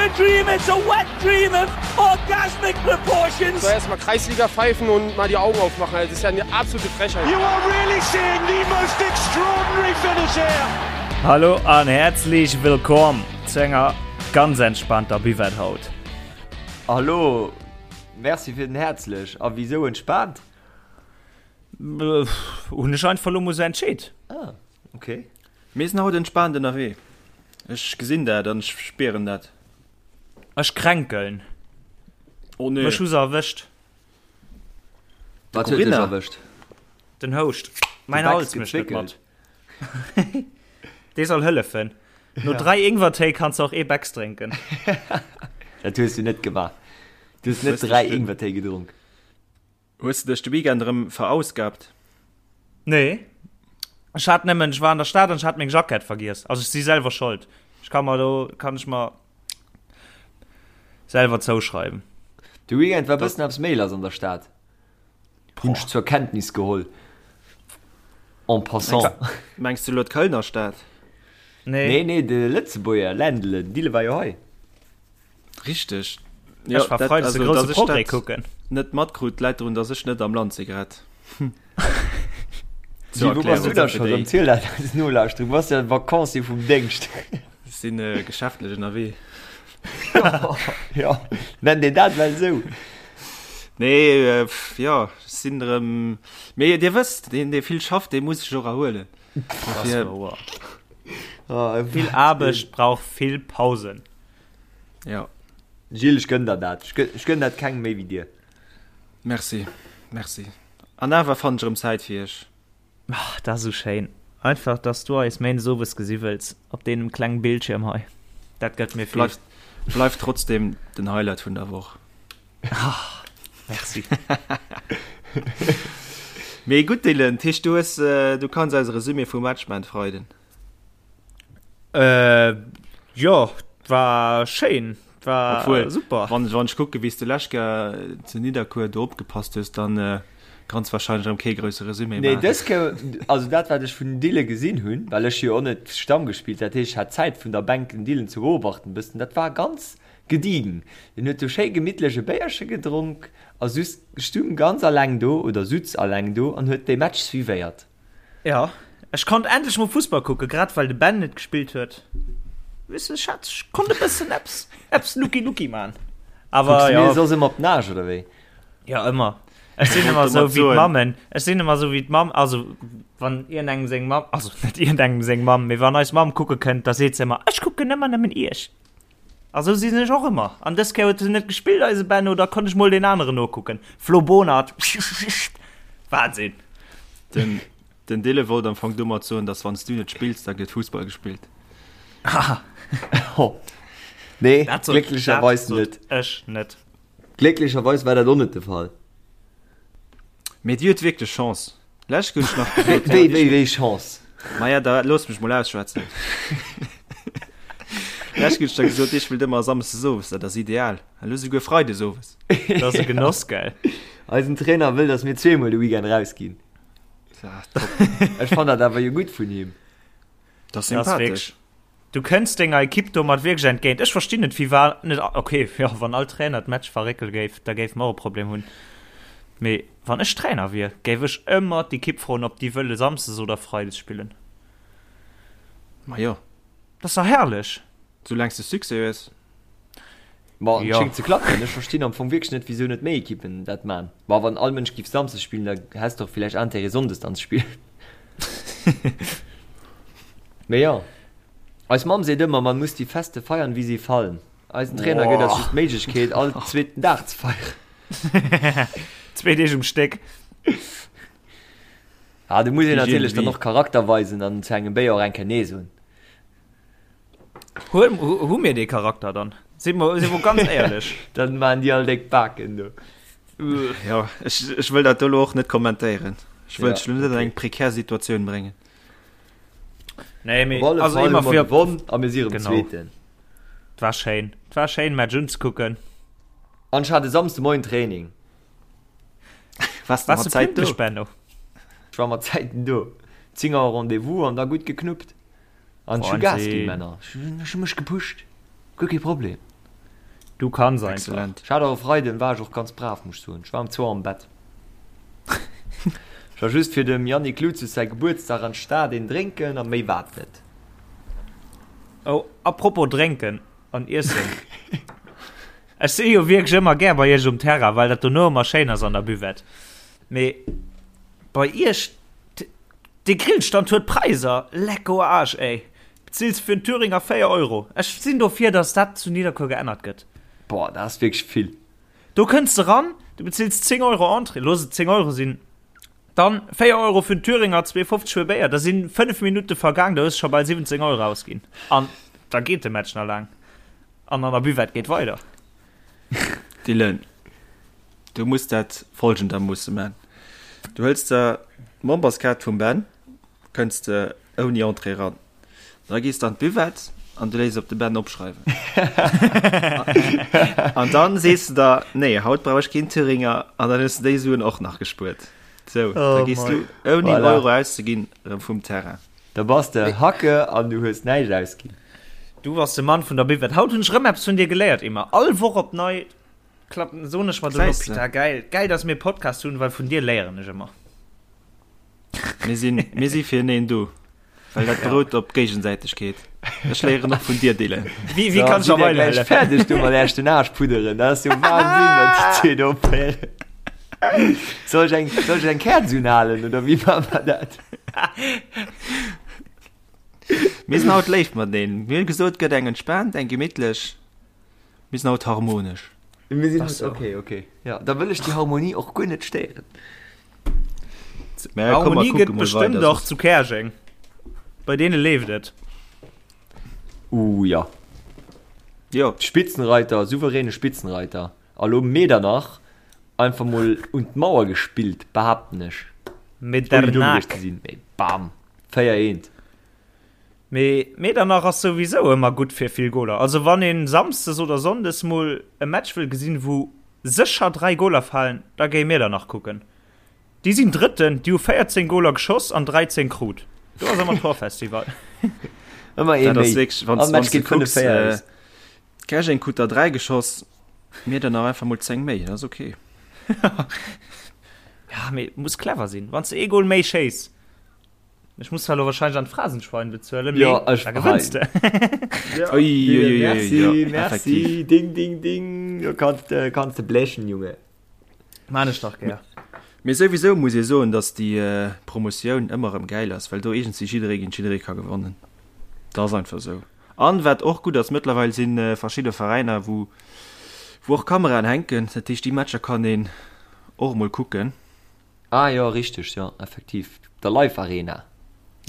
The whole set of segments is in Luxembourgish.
a dream, it's a wet dream of orgasmic proportions. So erstmal Kreisliga pfeifen und mal die Augen aufmachen. Das ist ja eine absolute Frechheit. You are really seeing the most extraordinary finish here. Hallo an häerzlech wëllkomm zu enger ganz entspannter Buvette haut. Hallo, merci fir den häerzlech. A wisou entspaant? Hunn ech einfach lo mol sou entscheet. Ah, okay. Mir sinn haut entspaant ënnerwee. Ech gesinn dat an ech spieren dat. Ech kränkeln. Oh nee. Mech hu se erwëscht. Wat huet dech erwëscht? Den Houscht. Mäin Hals mécht net mat. Dee soll hëllefen. No 3 Ingwertéi kanns de och ee Becks drénken. Dat hues du net gemaach. Du hues net 3 Ingwertéi gedronk. Hues de dech de Weekend erëm verausgabt? Nee. Ech hat nëmmen, ech war an der Stad an ech hat meng Jackett vergiess. Also ech si selwer schold. Ech ka mer do, kann ech mer selwer zouschreiwen. De Weekend war bëssen eppes méi lass an der Stad. Hunn ech zur Kenntnis geholl. En passant. Mengs du elo d'Kölner Stad? Nee. Nee, nee, de Lëtzebuerger Ländle, Dille war jo hei. Richteg. Ja, ech war freides de grousse Progrès kucken. Net matkrut läit drun, dass ech net am Land si grad. Wou bass du da scho rëm? Ziel dat eis Nolauschterer. Du bass jo Vacancier vum Déngscht. Ech sinn geschäftlech ënnerwee. Jo, nennt een dat well esou? Nee, jo, ech sinn erëm. Mee Dir wësst, deen, dee vill schafft, dee muss sech och erhuelen. Dat ass wouer. Vill Aarbecht brauch vill Pausen. Ja. Gilles, ech gönn der dat. Ech gönn dat kengem méi wéi dir. Merci, merci. An awer fannen ech erëm Zäit fir iech. Ach, dat ass esou schéin. Einfach, dass du eis méindes owes gesi wëlls op deemem klengen Bildschierm hei. Dat gëtt mir vill. Bleift, bleift trotzdem den Highlight vun der Woch. Ah, merci. Mee gutt, Dylan, dat heescht, du hues, du kanns eis e Resumé vum Match man Freiden. Äh, jo, war schéin, war Obwohl, super. Wann, wann ech kucke wéi s de lescht Kéier zu Nidderkuer do opgepasst hues, dann äh, kanns wahrscheinlech erëm kee grousse Resumé Nee, maachen. dës Kéier, also dat wat ech vun den Dille gesinn hunn, well ech jo och net Stamm gespillt, dat heescht ech hat Zäit vun der Bänk den Dillen ze beobachten bëssen, dat war ganz gediegen. Den huet do schéi gemittlech e Béierche gedronk a sus stung ganz alleng do oder sutz alleng do an huet dee Match suivéiert. Jo, ech konnt endlech mol Fussball kucken, grad well de Ben net gespillt huet. Weess de, ech hat, ech konnt e bëssen eppes, eppes Lucky Lucky man. Awer Kucks du jo. mir soss ëmmer op d'Nage, oder wéi? Jo, ëmmer. Ech sinn ëmmer Wollt esou domat wéi soen. d'Mammen. Ech sinn ëmmer esou wéi d'Mamm, also wann iergendengem seng Mamm, also net iergendengem seng Mamm, mee wann eis Mamm kucke kënnt, da seet se ëmmer, Ech kucken ëmmer nëmmen iech. A sou sinn ech och ëmmer. An dës Kéier huet en net gespillt, eise Benno, da konnt ech mol deen aneren nokucken. Flo Bonert, Wahnsinn! Den, den Dille wollt am Fong domat soen, dass wann s du net spills, da gëtt Fussball gespillt. Oh. Nee, Dat sot, glécklecherweis dat sot net. ech net. Glécklecherweis war dat och net de Fall. Mee dir huet wierklech Chance. Lech hunn ech nach gesot. Wéi, wéi, wéi Chance? Maja, da looss mech mol ausschwätzen. Lech hunn ech da gesot, dir spillt ëmmer samsdes owes, dat ass ideal. Elo souguer freides owes. Dat ass e Genoss, gell? Eisen Trainer wëll, dass mir zweemol de Weekend rausginn. Ja, top. Ech fann dat awer jo gutt vun him. Dat ass Dat ass sympathesch. wierklech. Du kënns denger Ekipp domat wierklech entgéint. Ech verstinn net, firwat net. Ok, jo, wann all Trainer d'Match verréckele géif, da géife mer och e Problem hunn. Mee wann ech Trainer wier, géif ech ëmmer d'Ekipp froen, ob déi wëlle samsdes oder freides spillen. Ma jo. Dat ass dach herrlech. Soulaangs de Succès hues. Ma et Jo. schéngt ze klappen. Ech verstinn am Fong wierklech net, wisou net méi Ekippen dat man. Ma wann all Mënsch giff samsdes spillen, da häss de och villäicht Intérêt sonndes dann ze spillen. Mee jo. Eis Mamm seet ëmmer, man muss die Feste feiern, wie sie fallen. Eisen Trainer gëtt eis just d'Méiglechkeet, all zweeten Dag ze feieren. Zwee Deeg um Stéck. Ah, do muss een Hygiène natierlech dann de och Charakter weisen an zu engem Béier och eng Kéier Nee soen. Hu, hu mir dee Charakter dann? Si mer, si mer ganz éierlech. Dann maan déi all déck Baken do. Jo, ech, ech wëll dat do elo och net kommentéieren. Ech wëll Ja, dech elo net an okay. eng prekär Situatioun bréngen. Nee, mee, Op alle also Fall hu ëmmer mer fir, gewonn a mir si erëm Genau. Zweeten. 't war schéin. 't war schéin, Match unzekucken. An ech hat e Samsde Moien Training. Wars de Wars mat du Zäit do? pünktlech, Benno? Ech war mat Zäiten do. 10 Auer Rendez-vous an da gutt geknuppt. An ech hu Gas ginn, Männer. Ech hu mech gepusht. Guer kee Problem. Du kanns einfach. Excellent. Ech hat och e Freiden, war ech och ganz brav, muss ech soen. Ech war um zwou am Bett. Ech war just fir dem Yannick Lucius säi Gebuertsdag an d'Stad een drénken a méi war et net. Oh, apropos drénken an iessen. Ech si jo wierklech ëmmer gär bei iech um Terrain, well dat dono ëmmer schéin ass an der Buvette. Mee bei iech, dee Grillstand huet Präisser, lecko Arsch ey. Bezills fir en Thüringer 4 Euro. Ech sinn dofir, dass dat zu Nidderkuer geännert gëtt. Boah, dat ass wierklech vill. Do kënns de ran, du bezills 10 Euro Entrée, looss et 10 Euro sinn, dann 4 Euro fir en Thüringer, 2,50 fir e Béier, da sinn 5 Minutte vergaang, da hues de scho bal 17 Euro ausginn. An da geet de Match nach laang. An an der Buvette geet weider. Dylan, du muss dat folgendermoosse man. Du hëls der d'Memberskaart vum Ben, kënns de ouni Entrée ran. Da gees de an d'Buvette an du léiss op de Ben opschreiwen. An dann sees de der, nee, haut brauch ech keen Thüringer an dann hues de déi Suen och nach gespuert. Sou, da Oh gees mei. du ouni en Voilà. Euro auszeginn erëm vum Terrain. Da bass de Hacke an du hues näischt ausginn. Du bass de Mann vun der Buvette. Haut hunn ech rëm eppes vun dir geléiert, Emma. All Woch op nei klappen, soen ech mer dono, Gesäis de. Pita, geil, geil, dass mir e Podcast hunn, well vun dir léieren ech ëmmer. Mir sinn, mir si fir eneen do. Well dat berout op Géigesäitegkeet. Ech léieren och vun dir, Dylan. Wie, wie kann schon schon gleich fäerdeg du mat Äerch den Aarsch pudderen. Dat ass jo Wahnsinn, wat déi zwee do opféieren. Soll ech eng, soll ech eng Käerz unhalen oder wéi maache mer dat? Mir sinn haut léif mateneen. Mir hunn gesot, et gëtt eng entspaant, eng gemittlech. Mir sinn haut harmonesch. Mir sinn Ach haut, so. okay, okay. Ja, da wëll ech déi Harmonie och guer net stéieren. Mä komm, mer Harmonie kucke gëtt mol bestëmmt weider, och soss. zu Käerjeng. Bei deene leeft et. Uh, ja. Jo. Spitzenreiter, souveräne Spitzenreiter. A lo Medernach einfach mol un d'Mauer gespillt, behaapten ech. Ouni domm gewiescht Medernach. ze sinn, mee bam, 4 eent. Mee Medernach ass souwisou ëmmer gutt fir vill Goler. Also wann een Samsdes oder Sonndes mol e Match wëll gesinn wou sécher 3 Goler falen, da géi Medernach kucken. Déi sinn Drëtten, déi hu 14 Goler geschoss an 13 krut. Do ass ëmmer Torfestival. Ëmmer ee Dat ass méi. wierklech, wann All wann Match s de geet 5 kucks, 4 äh, aus. Käerjeng krut der 3 geschoss, Miedernach einfach mol 10 méi, dat ass ok. Ja, mee muss clever sinn. Wann s de ee Gol méi schéiss, Ech muss zwar lo wahrscheinlech an d'Phrasenschwein bezuelen, mee Ja, ech da gewënns de. Ja, Ui, ui, ui, ui, merci, ja, merci. effektiv. Ding, ding, ding. Du kannst, äh, kannst de blechen, Junge. Maan ech dach gär. Mee souwisou muss ee soen, dass déi Promotioun ëmmer erëm gäil ass, well do iergendwéi jidderee géint jidderee ka gewannen. Dat ass einfach esou. An wat och gutt ass, mëttlerweil si verschidde Veräiner, wou wou och Kameraen hänken. Dat heescht, déi Matcher kann een och emol kucken. Ah jo, richteg, jo, effektiv, der Live Arena.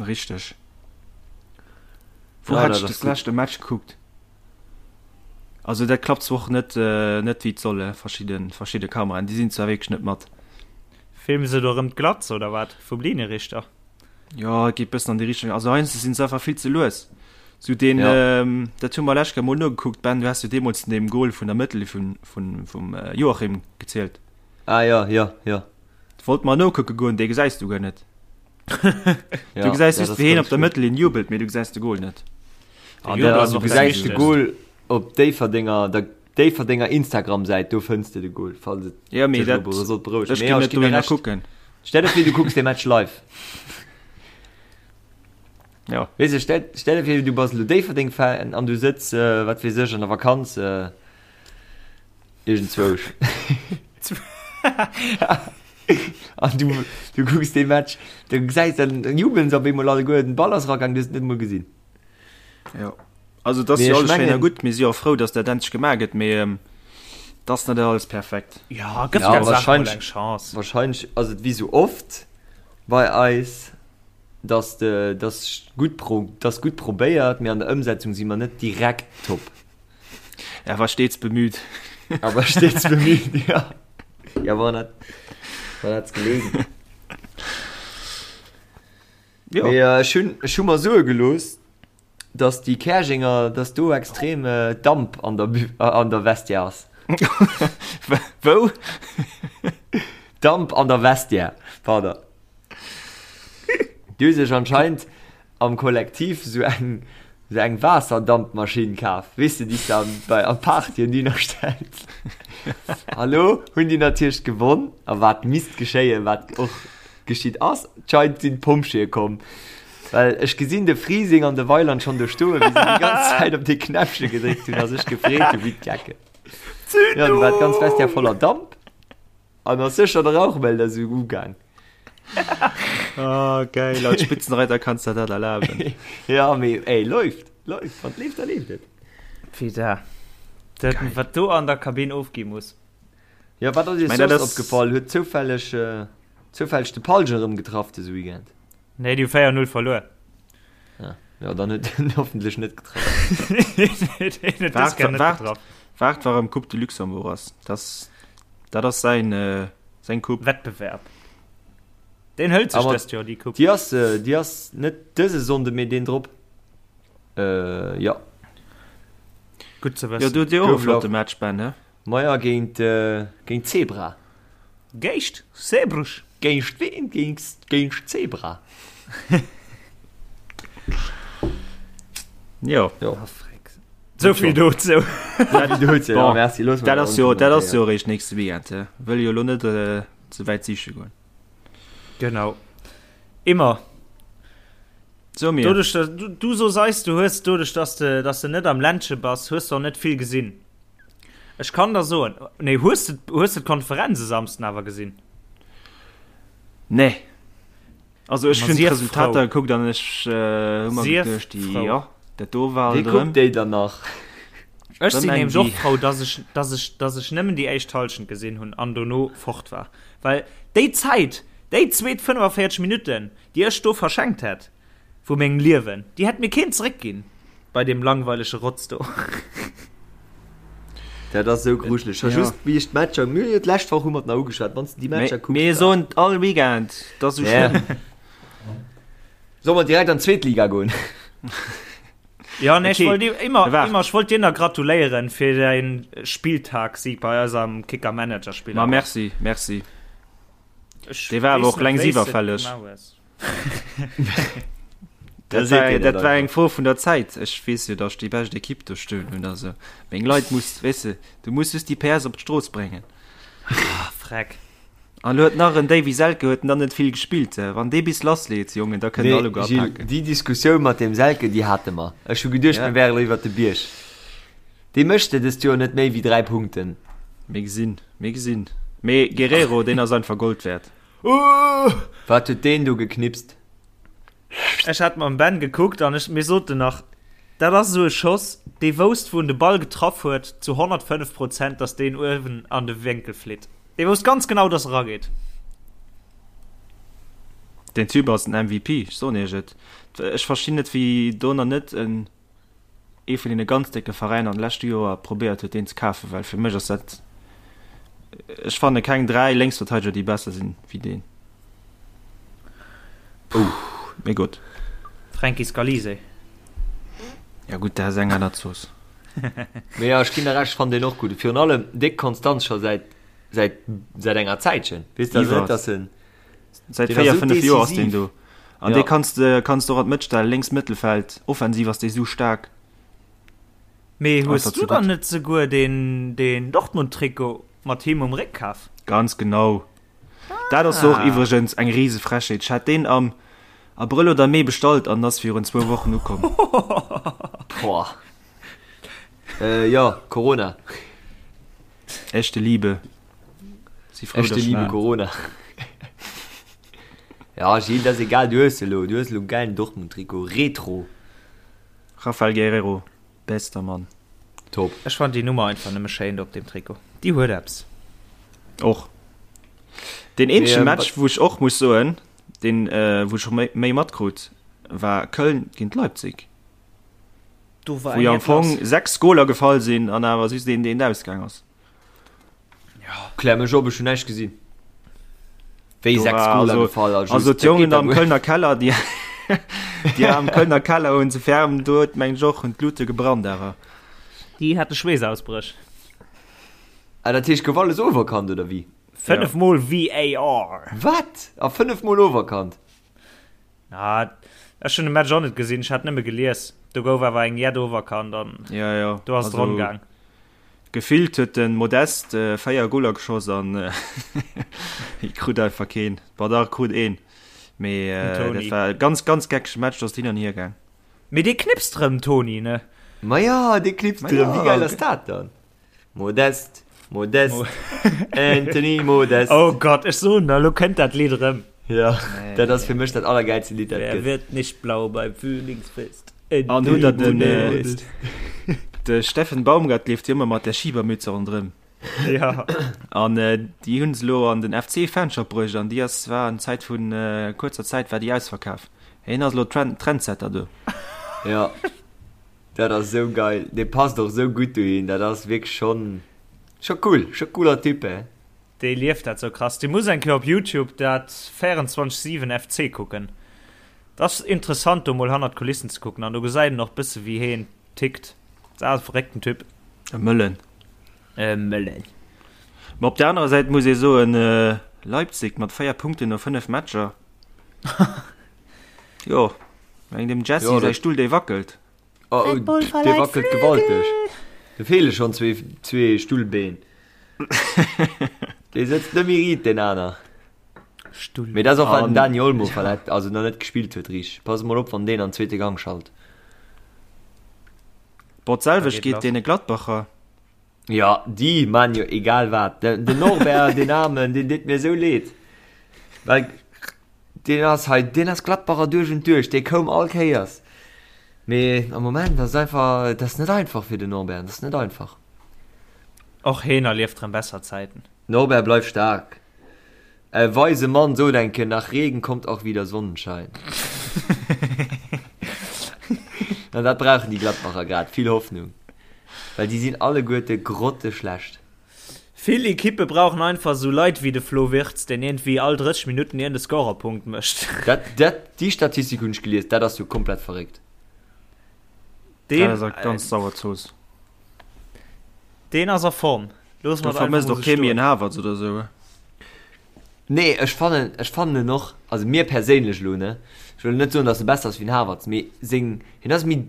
Richteg. Wou Ja, hat dat ech ass des gutt. lescht e Match gekuckt? Also dat klappt zwar och net net wéi et soll, verschidde verschidde Kameraen, déi sinn zwar wierklech net mat. Filme se do erëm d'Glatz oder wat vum Linierichter? Jo, et geet bëssen an déi Richtung. Also heiansdo sinn se einfach vill ze lues. Sou deen, Ja. dat hu mer lescht Kéier mol nogekuckt, Ben, du has jo deemools vun deem Goal vun der Mëttel vun vun vum Joachim gezielt. Ah jo, jo, jo. Wollt mer nokucke goen, dee gesäis du guer net. Ja, Du gesäis ja, just dat wéi heen ass op der ganz Mëttellinn jubelt, mee du gesäis de Goal net. De Ja, Jubel ass du och dat gesäis de Wichtegst. Goal op Déifferdenger, der Déifferdenger Instagram-Säit, do fënns de de Goal, falls et Ja, mee dech elo dat, sollt berouegen. ech Mee ginn jo, ech net ginn der dohinner Recht. kucken. Stell der vir, du kucks dee Match live. Ja. Weess de, stell, stell der vir, du bass elo Déifferdeng-Fan an du sëtz, wat weess ech, an der Vakanz, Iergendzwousch. An du, du kucks dee Match, du gesäis dann, dann jubeln se op eemol alleguer, den Ball ass eragaang, du hues et net emol gesinn. Jo. Also dat ass Mee jo ech alles schéin a mengen- gutt, mir si jo och frou, datt dat endlech gemaach gëtt, mee ähm, dat ass net alles perfekt. Ja, gëff Ja, der Saach mol wahrscheinlech- eng Chance. Wahrscheinlech ass et wéi sou oft bei eis, dass de, dass gutt pro, dass gutt probéiert, mee an der Ëmsetzung si mer net direkt top. Er war stets bemüht. Aber stets bemüht, ja. Ja, woran hat, woran hat's gelegen? Ja. Mee, äh, ech hunn, ech hu mer soe gelooss, dass déi Käerjenger, dass do extrem äh, Damp an der, Bü- äh, an der Vestiaire ass. Wou? Damp an der Vestiaire, pardon. Déi hu sech anscheinend am Kollektiv sou eng. Sou eng Waasserdampmaschinn kaf, weess de, déi s de an, bei, an Partyen dohinner stells. A lo hunn déi natierlech gewonn. A wat misst geschéien, wat och geschitt ass, d'scheinend sinn d'Pompjeeë komm. Well ech gesinn de Frising an de Weiland schonn do stoen, wéi se déi ganz Zäit op dee Knäppche gedréckt hunn a sech gefreet hu wéi d'Gecken. Jo, du war d'ganz Vestiaire voller Damp. An ass sécher de Rauchmelder esou ugaang. Ah, geil, als Spitzenreiter kanns der dat erlaben. Ja, mee ey, läuft, läuft, wann et leeft, da leeft et. Pida. Dat, wat do an der Kabinn ofgi muss. Ja, wat ass iech Mein, dat soss ass- opgefall? Huet zoufälleg, äh, zoufälleg de Palge erëm getraff dëse Weekend? Nee, déi hu 4-0 verluer. Ah, ja, dann huet en hoffentlech net getraff. Deen huet dës Kéier net Waart, getraff. waart, warem Coupe de Luxembourg ass. Das, dat ass säin, äh, seng Coupe. Wettbewerb. Deen hëlt sech Aber dëst Joer déi Coupe. Déi ass, äh, déi ass net dëse Sonnde, mee deen drop. Äh, ja. Gutt ze Jo, wëssen. du huet Dir och e Gouf flotte lauf. Match, Ben, he? Maja géint, äh, géint Zebra. Géischt Zeebruch. Géint ween? Géint, géint Zebra. Jo. Jo. Ah, freck. Souvill dozou. Souvill dozou, ja, Bon, merci. Loosse mer dat ass jo, dat ass onkommentéiert. jo eréischt nächste Weekend, he? Wëll jo elo net äh, ze wäit siche goen. Genau. Immer. So mir. Doduerch, dass du, du sos eis, du hues doduerch, dass de, dass de net am Ländche bass, hues de och net vill gesinn. Ech kann der soen, nee, hues de, hues de d'Konferenz e Samsden awer gesinn? Nee. Also ech Ma hunn sief d'Resultater frou. gekuckt an ech äh, hu mer Sief geduecht, déi, frou. jo, dat do war Wee alt erëm. kuckt déi dann nach? Ech sinn Erëm eng nämlech och déi. frou, dass ech, dass ech, dass ech nëmmen déi éischt Hallschent gesinn hunn an dono fort war. Well déi Zäit, déi zweet 45 Minutten, déi ech do verschenkt hätt, Vu mengem Liewen. Déi hätt mir keen zeréckginn bei deem langweilege Rotz do. Dat ass esou grujeleg. Scho just wéi ech d'Matcher, mir hunn jo d'lescht Woch hu mer et nach ugeschwat, wann s de déi Matcher kucks. Mir soen et all Weekend, et ass esou schlëmm. Solle mer direkt an d'zweet Liga goen? Ja, nee, ech Okay, wollt dir immer, waart. immer, ech wollt dir nach gratuléieren fir däin Spilltagssieg bei eisem Kicker-Manager-Spill. Ma merci, merci. Ech Dee war awer weess och net, längst wéi s de et iwwerfälleg. gemaach hues. Dat war, dat war eng Fro vun der Zäit. Ech weess jo, datt ech déi bescht Ekipp do stoen hunn. Also meng Leit muss, weess de, du muss just déi PS op d'Strooss bréngen. Ah, freck. An lo huet nach en Davy Selke huet nach net vill gespillt. Wann dee bis lassleet, Jongen, da kënnen Nee, alleguer Gilles, apaken. déi Diskussioun mat deem Selke, déi hate mer. Ech hu geduecht, Ja. mir wären iwwer de Bierg. Dee mécht de dëst Joer net méi wéi 3 Punkten. Mir gesinn, mir gesinn. Mee Guerrero, deen ass einfach Gold wäert. Wat huet deen do geknipst? Ech hat mam Ben gekuckt an ech, mir soten nach, dat ass esou e Schoss, dee wousst, wou en de Ball getraff huet, zu 105 Prozent, dass deen uewen an de Wénkel flitt. Dee wousst ganz genau, dass e rageet. Deen Typ ass den MVP, ech soen iech et. Ech verstinn net, wéi do nach net en. ee vun deene ganz décke Veräiner an de leschte Joer probéiert huet deen ze kafen, well fir mech ass dat, ech fanne keng 3 Lénksverteideger déi besser sinn wéi deen. Oh. Mee gutt. Franky Scalise. Ja gutt, dat ass eng aner Zooss. Mee jo, ech ginn der Recht, ech fannen deen och gutt. Virun allem déck konstant scho säit säit säit enger Zäitchen. Weess de, also net dass en. Säit Deen ass 4, esou 5 Joer ass deen decisiv. do. An Ja. dee kanns de kanns de och an d'Mëtt stellen, lénks Mëttelfeld, offensiv ass dee sou staark. Mee hues Einfach du zu dann gutt. net souguer deen deen Dortmund-Trikot mat him um Réck kaf? Ganz genau. Dat ass och Ah. iwwregens eng rise Frechheet. Ech hat deen am Abrëll oder Mee bestallt an ass virun zwou Wochen ukomm. Boah. Äh, jo, Corona. Echte Liebe. Si frou, Echte dass Liebe war. Corona. Ja, Gilles, dat ass egal, du hues elo, du hues elo en gäilen Dortmund-Trikot, Retro. Raphael Guerreiro, bester Mann. Top. Ech fannen déi Nummer einfach nëmme schéin do op deem Trikot. Déi huet eppes. Och. Deen eenzege Mee, Match, wou ech och muss soen, deen, wou ech och méi, méi matkrut, war Köln géint Leipzig. Do war Wou jo eng am Fong lass. 6 Goler gefall sinn an awer just een, deen ausgaang ass. Klär mech op, ech hunn näischt gesinn. Wéi Do 6 war Goler also, gefall a just, also dat d'Jongen geet da am guer. Kölner Keller, déi, déi am Kölner Keller hunn ze ferm, do huet meng ech och, hunn d'Lute gebrannt awer. Déi hate Schweessausbréch. Ah, dat heescht gouf alles overkannt oder wéi? 5 mol VAR. Wat? A 5 mol overkannt? Ah. Ech hunn de Match och net gesinn, ech hat nëmme gelies. Do gouf awer eng jett oferkannt an Ja, ja. do ass et Also, ronn gaang. Gefillt huet de Modeste 4 Goler geschoss an hie krut einfach keen. Bon, dach, e krut een. Mee Den dat Toni. war e ganz, ganz geckege Match, do ass et hin an hier gaang. Mee dee knipst rëm, Toni, ne? Ma jo, dee knipst Ma rëm. Wéi jo. geil ass dat dann? Modeste, Modeste, Anthony Modeste. Oh Gott, ech soen der, elo kënnt dat Lidd erëm. Ja, dat ass fir mech dat allergäilste Lidd, dat Wer gëtt. wird nicht blau beim Frühlingsfest? An hutt der Anthony den, Modeste. de Steffen Baumgart leeft jo ëmmer mat där Schiebermütze ronderëm. Ja. An déi hunn se elo an den FC-Fanshop bruecht an déi ass, war an Zäit vun kuerzer Zäit war déi ausverkaf. Hien ass elo Trend, Trendsetter do. Ja. Dat ass sou geil, dee passt och sou gutt dohin, dat ass wierklech schonn scho cool, scho cooler Typ he. Dee lieft dat sou krass. Dee muss eng Kéier op Youtube dat 24 7 FC kucken. Dat ass interessant do mol hannert d'Kulissen ze kucken an do gesäit een och bësse wéi heen tickt. Dat ass e verréckten Typ. E Mëllen. E Mëllen. Ma op der anerer Säit muss ee soen, Leipzig mat 4 Punkten no 5 Matcher. Jo, meng dem Jesse Jo, säi dat- Stull dee wackelt. Oh, Red Bull dee verleiht wackelt Flügel. gewalteg. Do feele schonn zwee, zwee Stullbeen. Dee sëtzt net méi riit, deen aner. Stull. Mee dat ass och, well den An- Dani Olmo verletzt, also nach net gespillt huet richteg. Pass mol op, wann deen an zweete Gang schalt. Bon, d'selwecht Da geet geet lass. deene Gladbacher. Jo, déi man jo egal wat. Den den Norbert, deen Aarmen, deen deet mir esou leed. Well deen ass hei, deen ass Gladbacher duerch und duerch, dee koum all Kéiers. Mee am Moment ass einfach, et ass net einfach fir den Norbert, et ass net einfach. Och heen erlieft rëm besser Zäiten. Norbert, bleif staark. E weise Mann sot eng Kéier, nach Regen kommt auch wieder Sonnenschein. An dat brauchen déi Gladbacher grad, vill Hoffnung. Well déi sinn alleguerte grotteschlecht. Vill Ekippe brauchen einfach esou Leit wéi de Flo Wirtz, deen iergendwéi all 30 Minutten iergend e Scorerpunkt mécht. Dat, dat, déi Statistik hunn ech gelies, dat ass jo komplett verréckt. Deen, Dat ass eng ganz sauer Zooss. Deen ass a Form. Loosse Do mer et einfach vermësst mol och sou kee méi stoen. en Havertz oder esou. Nee, ech fannen, ech fannen en och, also mir perséinlech elo, ne, ech wëll net soen, datt e besser ass wéi den Havertz, mee seng, hien ass méi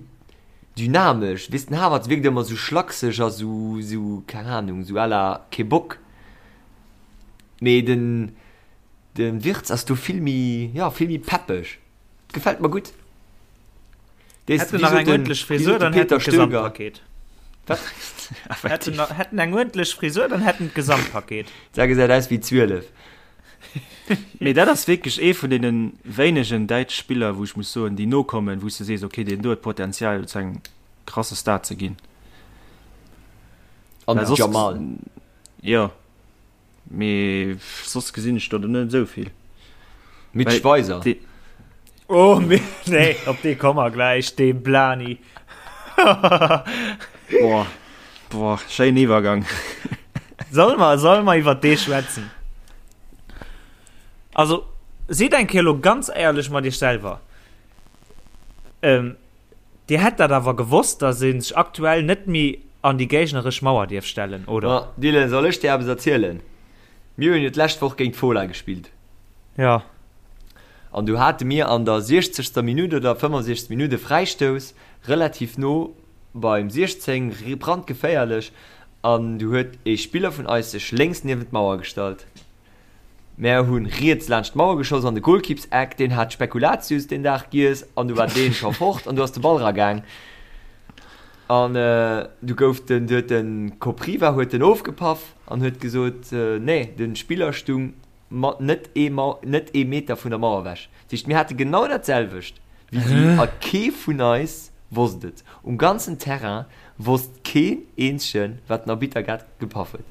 dynamesch, weess, den Havertz wierkt ëmmer sou schlakseg a sou, sou, keng Ahnung, sou à la kee Bock, mee den, den Wirtz ass do vill méi, jo, vill méi peppeg, gefält mer gutt. Dee, Hätt en wéi nach sot eng den, uerdentlech wéi Frisur, sot de dann hätt Peter en Stöger? d'Gesamtpaket. Wat? Hätt en, hätt en eng uerdentlech Frisur, dann hätt en d'Gesamtpaket. Dat gesäit aus wéi 12. Mee dat ass wierklech ee vun deene wéinegen däitsch Spiller, wou ech muss soen, déi nokommen, wou s de sees, okay, deen do huet Potenzial zu engem krasse Star ze ginn. An Well den soss, Jamal. jo, mee soss gesinn ech do net esou vill. Mitch Well Weiser. dee, Oh, mee, nee, op dee komme mer gläich, dee Blani. boah, boah, schéinen Iwwergang. Solle mer, solle mer iwwer dee schwätzen? Also, sidd eng Kéier elo ganz éierlech mat iech selwer. Ähm, Dir hätt dat awer gewosst, dass ee sech aktuell net méi an déi géigneresch Mauer dierf stellen, oder? Ma Dylan, soll ech dir eppes erzielen? Mir hunn jo d'lescht Woch géint d'Fola gespillt. Jo. An du hate mir an der siechzegster Minutt oder 65. Minutt e Fräistouss, relativ no beim 16, brandgeféierlech, an du huet e Spiller vun eis sech lénks niewent d'Mauer gestallt. Mär hunn riets laanscht d'Mauer geschoss an de Golkippseck, deen hat Spekulatius deen Dag giess an du war deen scho fort an du ass de Ball ragaang an du gouf den, du huet den Kopriva huet den ofgepaff an huet gesot, nee den Spiller stung mat net ee net ee Meter vun der Mauer ewech. Dat heescht mir hate genau dat selwecht wéi si a kee vun eis wosst et. Um ganzen Terrain wosst keen eenzegen wat den Arbitter grad gepaff huet.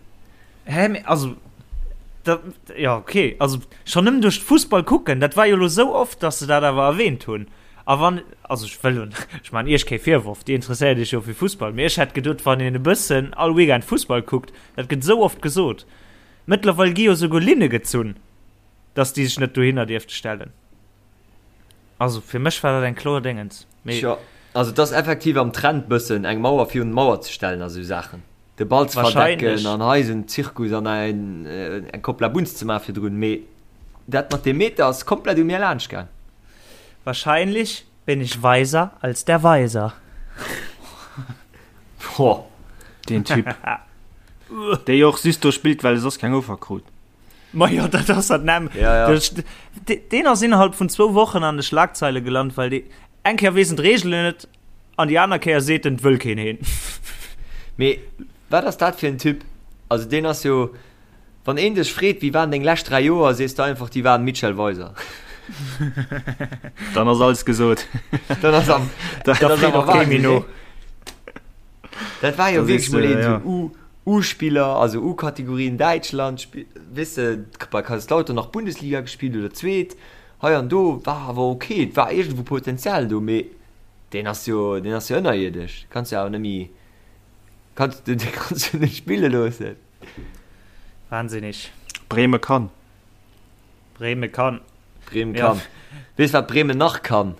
Hä, mee also, da, ja, okay, also schonn nëmmen duerch d'Fussball kucken, dat war jo elo sou oft, dass se dat awer erwähnt hunn. A wann, also ech wëll un, ech maachen Iech kee Virworf, Dir interesséiert Iech jo fir Fussball, mee ech hätt geduet, wann een e bëssen all Weekend Fussball kuckt, dat gëtt sou oft gesot. Mëttlerweil gi jo souguer Linne gezunn, dass déi sech net dohinner dierfte stellen. Also fir mech war dat eng kloer Déngens, mee. Tjo, also et ass effektiv am Trend bëssen eng Mauer virun d'Mauer ze stellen a sou Saachen. De Ball ze verdecken an hei esou en Zirkus an eng Kopp Labunz ze maachen virdrun, mee dat mat deem Meter ass komplett u mir laanscht gaang. Wahrscheinlich bin ich weiser als der Weiser. Boah. Deen Typ. Dee jo och just do spillt, well e soss keng Offer krut. Ma jo, dat ass dat näm. Ja, ja. Deen ass innerhalb vun zwou Wochen an de Schlagzeile gelant, well dee eng Kéier weess en d'Reegelen net an déi aner Kéier seet en, et wëll keen heen. Mee wat ass dat fir en Typ? Also deen ass jo, wann een dech freet, wéi waren deng lescht 3 Joer, sees de einfach, déi waren Michel Weiser. Dann ass alles gesot. Dann ass am, Da dat ass freet awer och kee méi Wahnsinn, no. nee? Dat war jo Da sees wierklech mol de, een ja. sou U, U-Spiller, also U-Kategorie in Däitschland, spi-, weess de, bei Kaiserslautern nach Bundesliga gespillt oder zweet, hei an do, war awer ok, et war iergendwou Potenzial do, mee deen ass jo, deen ass jo ënnerierdesch, kanns jo awer net méi, kanns de, dee kanns du net spille loossen. Wahnsinnig. Breme kann. Breme kann. Bremen Ja. kann. Weess wat Bremen nach kann?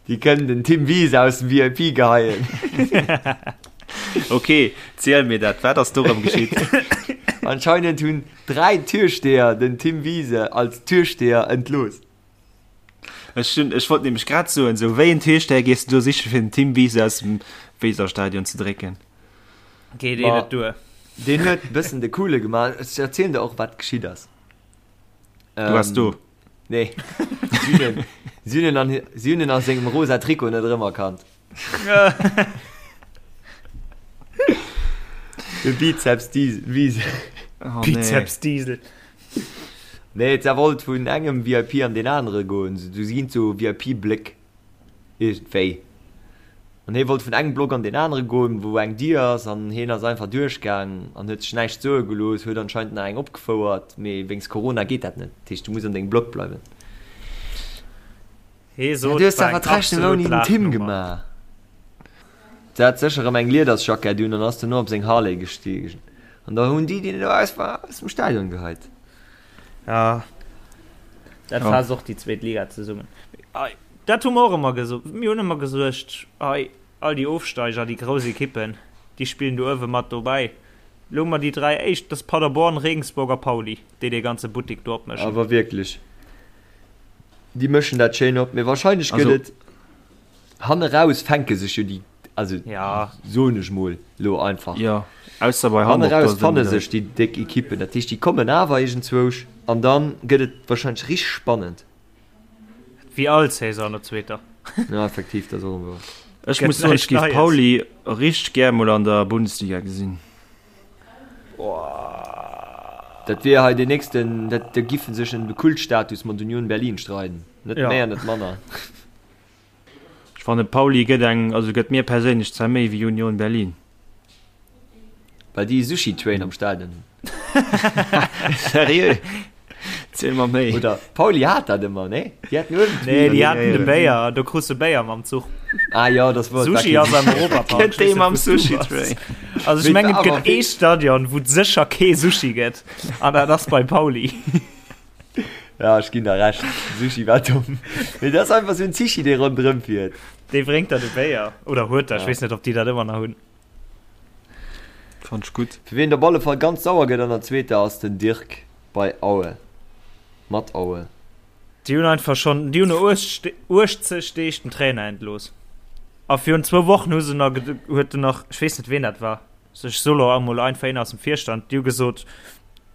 Déi kënnen den Tim Wiese aus dem VIP geheien. Ok, ziel mir dat, wat ass do rëm geschitt? Anscheinend hunn 3 Türsteher den Tim Wiese als Türsteher entlooss. Ech hunn, ech wollt nämlech grad soen, sou wéi en Türsteher gees du do siche fir den Tim Wiese aus dem Weserstadion ze drécken? Geet ee Ma net duer. deen huet bëssen de Coole gemaach. Ech erzielen der och wat geschitt ass. Du waars do. Nee. Si hunn en, si hunn en an, si hunn en a sengem rosa Trikot net erëmerkannt. De Bizeps Diesel. Wiesel. Oh, nee. Bizeps Diesel. Nee, et wollt vun engem VIP an deen anere goen. Du si ginn zu VIP-Bléck. Iergendwéi. An hie wollt vun engem Block an deen anere goen, wou eng Dier ass, an hien ass einfach duerchgaang an huet sech näischt soe gelooss, huet anscheinend nach eng opgefouert, mee wéinst Corona geet dat net. Dat heescht, du muss an dengem Block bleiwen. Hee Ja, sot, du hues war awer eng d'Rechnung absolut ouni den Tim Lachnummer. gemaach. Se hat sécher erëm eng Liedersjackett un an ass dono op seng Harley gestiegen. An da hunn déi, déi do aus war, aus dem Stadion geheit. Ja, dat Ja. faasst och déi zweet Liga zesummen. Ei, dat hu mer och ëmmer gesot. Mir hunn ëmmer gesuergt, ei, all déi Ofsteiger, déi grouss Ekippen, déi spillen do uewe mat dobäi. Elo hu mer déi 3 éischt, dat ass Paderborn, Regensburg a Pauli, déi dee ganze Buttik do opmëschen. Awer wierklech, déi mëschen dat schéin op. Mee wahrscheinlech gëtt Also- et Hanne raus fänke sech jo déi, also ja. soen ech mol lo einfach. Ja, ausser bei Hanne Hamburg. raus fanne sech déi déck Ekippen, dat heescht déi kommen awer iergendzwousch an dann gëtt et wahrscheinlech richteg spannend. Wéi all Saison an der zweeter. Ja, effektiv, dat ass och wouer. Ech muss soen, ech géif Pauli richteg gär mol an der Bundesliga gesinn. Dat wier hei deen nächsten, dat da giffen sech ëm de Kultstatus mat Union Berlin streiden, net Ja. méi an net manner. Ech fannen Pauli gëtt eng, also gëtt mir perséinlech zwar méi wéi Union Berlin. Well déi e Sushi Train am Stadion hunn. Seriö? Ziel mer méi. Oder Pauli hat dat ëmmer, nee? Déi haten uewen Nee, déi Ja, haten de ja. Béier, do krus de Béier mam Zuch. Ah jo, das war Sushi ass am Europapark. Gëtt dee mam Sushi Train. Also ech mengen, et gëtt ee Stadion, wou et sécher kee Sushi gëtt, an dat ass bei Pauli. Ja, ech ginn der Recht. Sushi war domm. Mee dat ass einfach sou en Zichi, dee ronderëm fiert. Dee bréngt der de Béier. Oder huet der, ech Ja. weess net, ob déi dat ëmmer nach hunn. Fand ech gutt. Fir wien op alle Fall ganz sauer gëtt an der zweeter ass den Dirk bei Aue. Mat Aue. Déi hunn einfach schonn, déi hunn no 80 Deeg den Trainer entlooss. A virun zwou Wochen hu se nach, huet en nach, ech weess net ween dat war, ech soe lo emol einfach een aus dem Virstand, déi hu gesot,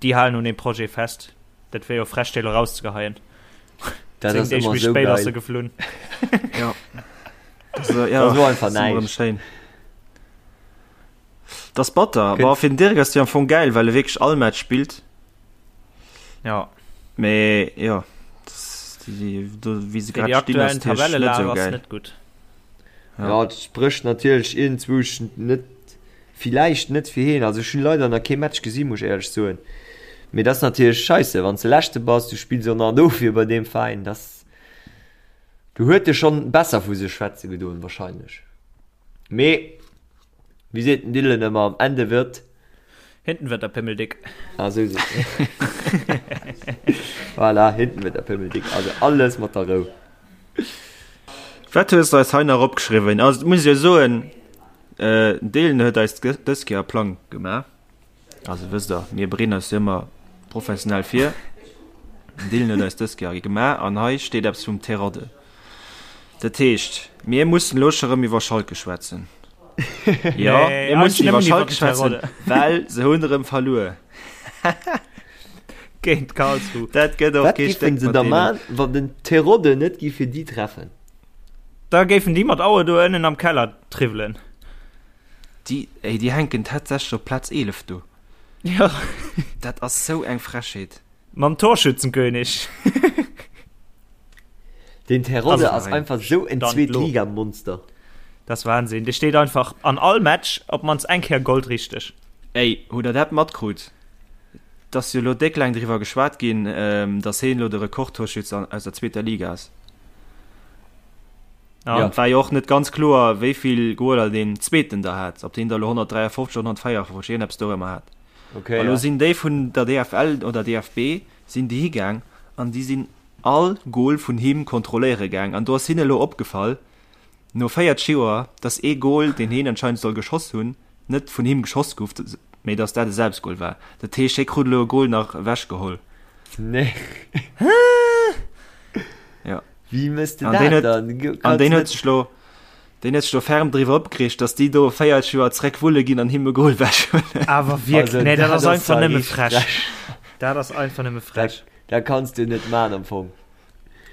déi halen un deem Projet fest. Dat wär jo frech, déi lo rauszegeheien. Dat 10 ass Deeg ëmmer méi sou spéit ass se geil. geflunn. Ja. Das, äh, ja, Dat ass elo einfach das ist ëmmer näischt. schéin. Das ass batter. Kënnt- Boah, fir den Dirk ass déi am Fong geil, well e wierklech all Match spillt. Ja. Mee ja, das, déi, déi, do, wéi se Fir déi grad stinn, ass aktuellen natierlech net Tabellelage sou ass geil. net gutt. Ja. Ja, et sprécht natierlech iergendzwousch net, villäicht net fir hien. Also ech hunn leider nach kee Match gesinn, muss ech éierlech soen. Mee dat ass natierlech scheisse, wann s de Leschte bass, du spills och nach an Ofwier bei deem Veräin. Dass, do huet e schonn besser vu sech schwätze gedoen wahrscheinlech. Mee wéi seet den Dylan ëmmer, am Ende wird. Hinten wird der Pimmel dick. Ah, sou seet en. Voilà, hinten wird der Pimmel dick. Also alles mat der Rou. Wat hues de eis hei nach opgeschriwwen? Also, et muss ech jo soen, den Dylan huet eis dës Kéier e Plang gemaach. Also wësst der, mir bereeden eis jo ëmmer professionell vir. Den Dylan huet eis dës Kéier ee gemaach an hei steet eppes vum Terodde. Dat heescht, mir mussen elo scho rëm iwwer Schalke schwätzen. Jo, Nee, mir mussen eigentlich iwwer nëmmen iwwer Schalke den schwätzen, Terodde. well se hunn erëm verluer. Géint Karlsruhe. Dat gëtt och Wat kee giffen Stéck se mat da deenen. man, wann den Terodde net giff fir déi treffen? Da géifen déi mat Aue do ënnen am Keller triwwelen. Déi, ey, déi hänken tatsächlech op Plaz 11 do. Jo. Dat ass sou eng Frechheet. Mam Torschützenkönig. Den Terodde Also, ass einfach sou en Stand lo. Zweetligamonster. Dat ass Wahnsinn. Dee steet einfach an all Match op d'mannst eng Kéier goldrichteg. Ey, hutt der dat matkrut? Et ass jo elo déck laang driwwer geschwat ginn, dass heen elo de Rekordtorschütz aus der zweeter Liga ass. Ja. An et war jo och net ganz kloer, wéi vill Goaler deen zweeten da hat, ob deen der elo 153 oder 154, iergendeppes dorëmmer hat. Okay, A lo ja. sinn déi vun der DFL oder DFB sinn déi higaang an déi sinn all Goal vun him kontrolléiere gaang an do ass hinne elo opgefall, no 40 Joer, dass ee Goal, deen heen anscheinend soll geschoss hunn, net vun him geschoss gouf, mee dass dat e Selbstgoal war. Dat heescht, hie krut elo e Goal nach ewechgeholl. Nee. Ja. Wéi mëss de An dat deen huet, dann? an deen huet sech lo, deen huet sech lo ferm driwwer opgereegt, dass déi do 40 Joer zréck wulle ginn an him e Goal ewechhuelen. Awer wierklech, Also, nee, dat dat ass ass einfach zwar nëmme richteg frech. frech. Dat ass einfach nëmme frech. Dat kanns du net man am Fong.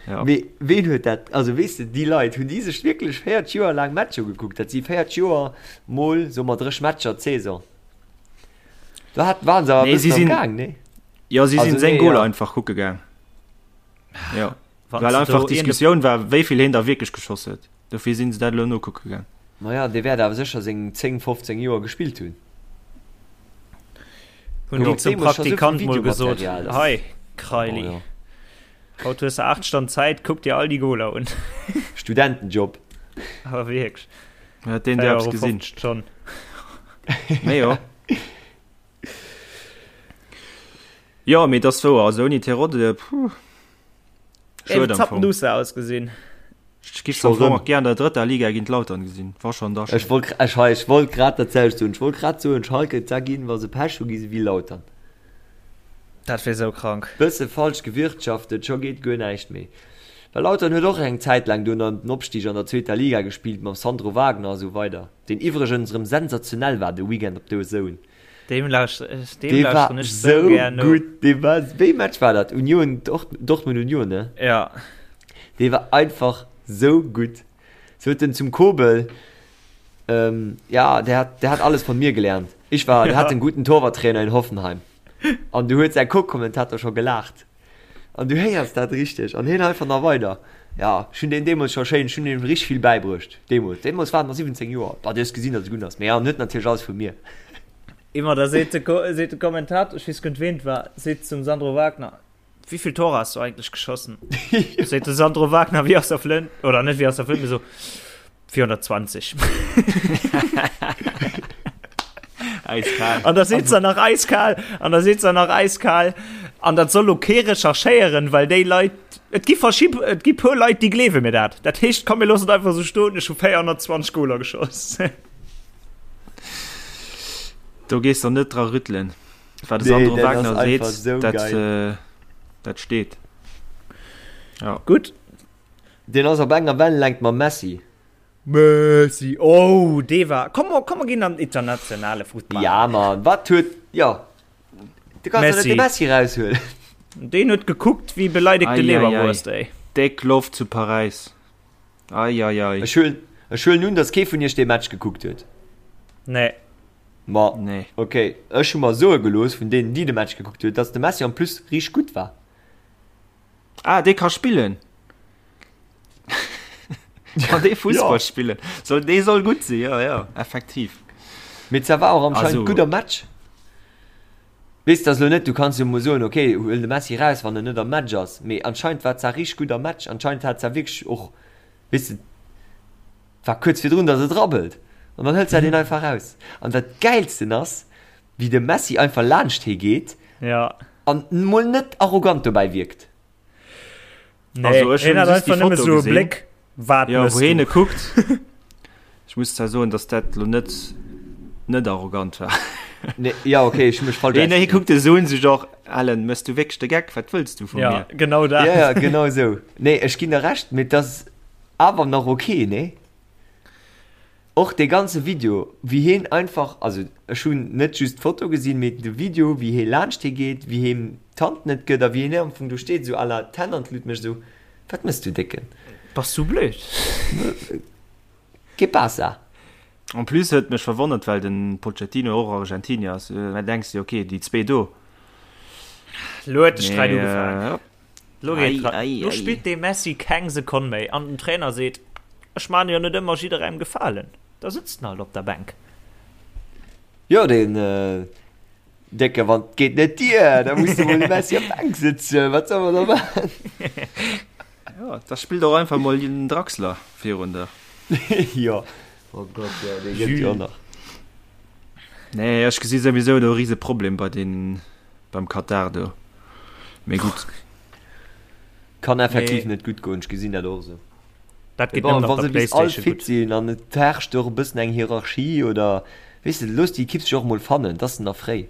Ja. Mee ween huet dat, also weess de, déi Leit, hunn déi sech wierklech 40 Joer laang Matcher gekuckt? Dat si 40 Joer mol, soe mer, 30 Matcher d'Saison. Do hat, waren se awer e Nee, si bëssen am sinn, Gaang, nee? jo, si Also sinn seng nee, Goaler ja. einfach kucke gaang. Jo. Wann Well s de einfach do iergend e d'Diskussioun war, wéi vill heen da wierklech geschoss huet. Dofir sinn se dat elo nokucke gaang. Maja, dee wäert awer sécher seng 10, 15 Joer gespillt hunn. Hunn déi Gouf zum deemools scho sou vill Praktikant mol gesot, Videomaterial, dass. Hei, Oh Kraili, jo. haut hues de 8 Stonn Zäit, kuck dir all déi Goler un. Studentenjob. Awer wierklech, Huet deen der eppes gesinn? 4,50 Euro d'Stonn. Mee jo. Jo, mee et ass wouer, also ouni Terodde, puh. Ey, Schued am wéi Fong. zappenduster ausgesinn. Ech giff Scho am Fong rëm. och gär an der drëtter Liga géint Lautern gesinn. War schon da Ech schéin. wollt, ech hei, ech wollt grad dat selwecht soen. Ech wollt grad soen, Schalke, da ginn, wa se Pech hu, gi se wéi Lautern. Dat wier sou krank. Bësse falsch gewirtschaftet, scho geet guer näischt méi. Well Lautern huet och eng Zäit laang do ëm den Opstig an der zweeter Liga gespillt, mam Sandro Wagner a sou weider, deen iwwregens erëm sensationell war de Weekend op DAZN. Deem lauschteren Dee war ech sou sou gär no. gutt, dee war, wéi Match war dat? Union, Dortmund Union, ne? Ja. Dee war einfach sou gutt. Sot en zum Kobel, ähm, ja, der hat, der hat alles von mir gelernt. Ich war, der hat einen guten Torwarttrainer in Hoffenheim. An du huet säi Co-Kommentator scho gelaacht. An du héiers dat richteg. An hien einfach nach weider, Ja, ech hunn deen deemools scho schéin, ech hunn him richteg vill bäibruecht. Deemools, deemools war en nach 17 Joer. Bah, du hues gesinn, datt e gutt ass. Mee ja, en huet natierlech alles vu mir. Immer, da seet de, seet de Kommentator, ech weess guer net ween et war, seet zum Sandro Wagner, Wie viel Tore hast du eigentlich geschossen? Seet de Sandro Wagner wéi aus der Flënt, oder net wéi aus der Flënt, mee sou, 420. Eiskal. An da seet se nach eiskal, an da seet se nach eiskal, an dat soll lo kee recherchéieren, well déi Leit, et gi verschi-, et gi puer Leit, déi gleewe mir dat. Dat heescht, komm mir loossen et einfach esou stoen, ech hu 420 Goler geschoss. Do gees der net dra rüttelen. Wat de Nee, Sandro dat ass Wagner seet, einfach sou dat, geil. äh, dat steet. Ja. Gutt. Deen ass op enger Wellenlängt mam Messi. Messi, oh, dee war, komm, komm mer ginn an den internationale Futtball. Ja Mann, wat huet, jo, du kanns doch net de Messi raushuelen. Deen huet gekuckt wéi beleidegte Leberwurst, ey. Déck Loft zu Paräis, ei ei ei. Ech huelen, ech huelen un, dass kee vun iech dee Match gekuckt huet. Nee. Ma, Nee. ok, ech hu mer soe gelooss vun deenen, déi de Match gekuckt huet, dass de Messi en plus richteg gutt war. Ah, dee ka spillen. Kann dee Fussball Ja. spillen? Soll, dee soll gutt sinn, ja, ja, effektiv. Mee zwar war och anscheinend Also- gutt am Match. Weess de, ass lo net, du kanns jo mol soen, ok, huel de Messi raus, wann en net am Match ass. Mee anscheinend war zwar richteg gutt am Match. Anscheinend hat zwar wierklech och, weess de, war kuerz virdrun, datt et rabbelt. An dann hëlt se deen einfach raus. An dat Gäilsten ass, wéi de Messi einfach laanscht hee geet Ja. an mol net arrogant dobäi wierkt. Nee, Also, ech hien hunn hat just déi einfach nëmme Foto sou e gesinn. Bléck, wat Ja, mëss wou hien du? e kuckt. Ech muss zwar soen, dass dat lo net net arrogant war. Nee, ja, okay, ech hu mech falsch Hien, hie ausgedréckt. kuckt e sou un sech och. Alen, mëss du wierklech de Geck? Wat wëlls du vu mir? Ja, genau dat. Ja, ja, genau esou. Nee, ech ginn der Recht, mee et ass awer nach ok, nee? Och dee ganze Video, wéi heen einfach, also ech hunn net just d'Foto gesinn, mee de Video, wéi hee laanscht hie geet, wéi him d'Hand net gëtt a wéi hien am Fong do steet, esou à la d'Hänn an d'Lut mécht, esou, Wat mëss du, Décken? Bass du blöd? Que pasa? En plus huet mech verwonnert, well den Pochettino och Argentinier ass, da denks de, ok, déi zwee do. Lo huet de Sträit ugefaangen. Lo geet dran. Lo spillt dee Messi keng Sekonn méi an den Trainer seet, Ech maan jo net ëmmer jidderengem Gefalen. Da sëtzt en halt op der Bänk. Jo, deen Décke, wann 't geet net dier, da muss de mol de Messi op d'Bänk sëtzen. Wat soll mer da maachen? Jo, da spillt och einfach mol den Draxler virun der. Jo, oh Gott, jo, dee gëtt jo och nach. Nee, ech gesi souwisou do e rise Problem bei den, beim Katar do. Mee gutt. Kann effektiv net gutt goen, ech gesinn dat och esou. Dat geet nëmmen op der Wa se bis all Playstation fit gutt. sinn an et herrscht och e bëssen eng Hierarchie oder, weess de, looss déi Ekipp sech och emol fannen, et ass nach fréi.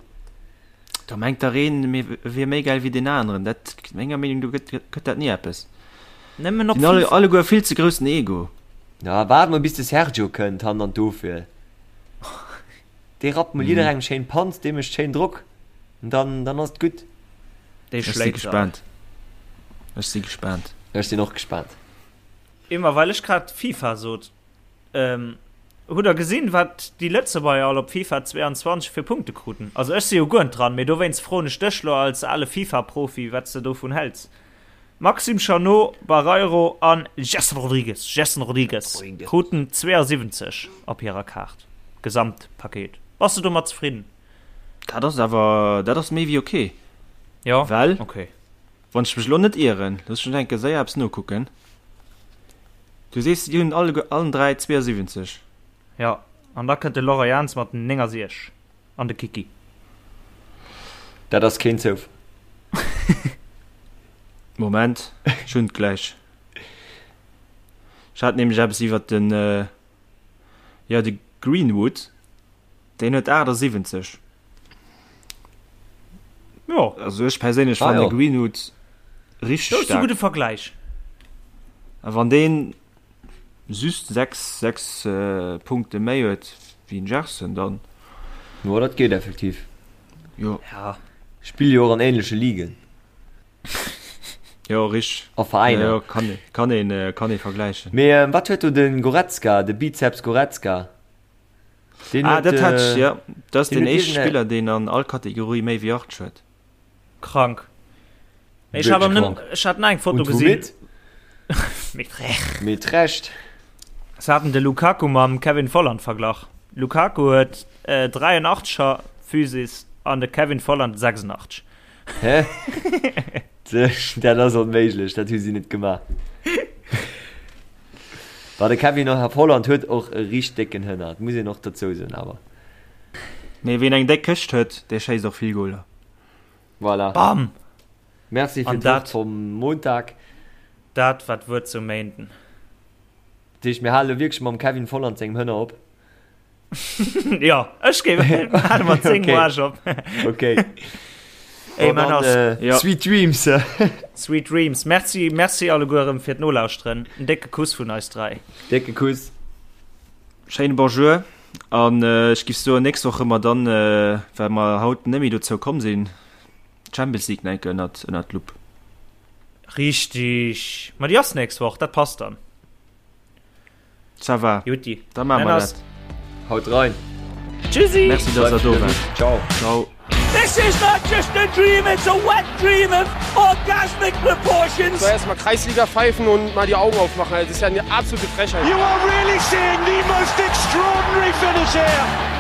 Da mengt der een, mir wier méi gäil wéi deen aneren. Dat, menger Meenung no, gëtt, gëtt dat ni eppes. Nëmmen op Déi hunn alle, FIFA. alleguer vill ze groussen Ego. Na, waart mol bis de Sergio kënnt hannen an d'Ofwier. Dee rappt mol jidderengem schéin d'Panz, dee mécht schéin Drock an dann, dann ass et gutt. Dee Ech si schléit se all. gespaant. Ech si gespaant. Ech sinn och gespaant. Immer well ech grad FIFA sot. Hutt der gesinn, wat déi Lëtzebuerger all op FIFA 22 fir Punkte kruten? Also ech si jo guer net dran, mee dowéinst froen ech dech lo als ale FIFA-Profi, wat s de dovun häls. Maxime Chanot, Barreiro an Gerson Rodrigues, Gerson Rodrigues, kruten 72 op hirer Kaart, Gesamtpaket. Bass de domat zefridden? Dat ass awer, dat ass méi wéi ok. Jo, Well, ok. wann ech mech elo net ieren, looss mech enke séier eppes nokucken. Du sees, déi hunn alleguer, allen 3 72. Jo, an da kënnt de Laurent Jans mat 69 an de Kiki. Dat ass keen Zoufall. Moment, ech hunn et gläich. Ech hat nämlech eppes iwwert den, jo, de Greenwood, deen huet 78. Jo. Also ech perséinlech Ah, fannen jo. de Greenwood richteg Dat ass e staark. gudde Vergläich. A wann deen just 6, 6 Punkte méi huet wéi den Gerson, dann. Jo, dat geet effektiv. Jo. Ja. Spille jo och an ähnleche Ligen. Jo, richteg. A Veräiner. Jo, jo, kann, kann een, kann ee vergläichen. Mee wat huet do de Goretzka, de Bizeps Goretzka? Deen ah, dat hat ech, ja. Dat ass den éischte Spiller, deen an all Kategorie méi wéi 80 huet. Krank. Ech hat, am, ech hat eng Foto gesinn. Mit Recht. Mit Recht. Se haten de Lukaku mam Kevin Volland verglach. Lukaku huet äh, 83er Physis an de Kevin Volland 86. Hä? Dat ass onméiglech, dat hu si net gemaach. Bah, de Kevin Volland huet och e riicht décken Hënner, dat muss een och dozou soen awer. Nee, wien eng déck Këscht huet, dee schéisst och vill Goler. Voilà. Bam! Merci fir An d'Wort dat- vum Montag. Dat war d'Wuert zum Méinden. Dat heescht, mir hale wierklech mam Kevin Volland sengem Hënner op. Jo, ech géif hale mat sengem Okay. Arsch op. Okay. Ey, Bon, man dann, ass. äh, Ja. Sweet Dreams. Sweet Dreams. Merci, merci alleguer erëm fir d'Nolauschteren. En décke Kuss vun eis 3. Décke Kuss. Schéine Bonjour an äh, ech giff soen, nächst Woch hu mer dann, äh, well mer haut net méi dozou komm sinn, d'Champions League nach eng Kéier ënnert, ënnert d'Lupp. Richtig. Ma déi ass nächst Woch, dat passt dann. Ça va. Jutti. Da maache mer dat. Haut rein. Tschüssi. Merci, dass der do waart. Ciao. Ciao. This is not just a dream, it's a wet dream of orgasmic proportions. So erstmal Kreisliga pfeifen und mal die Augen aufmachen. Das ist ja eine absolute Frechheit. You are really seeing the most extraordinary finish here.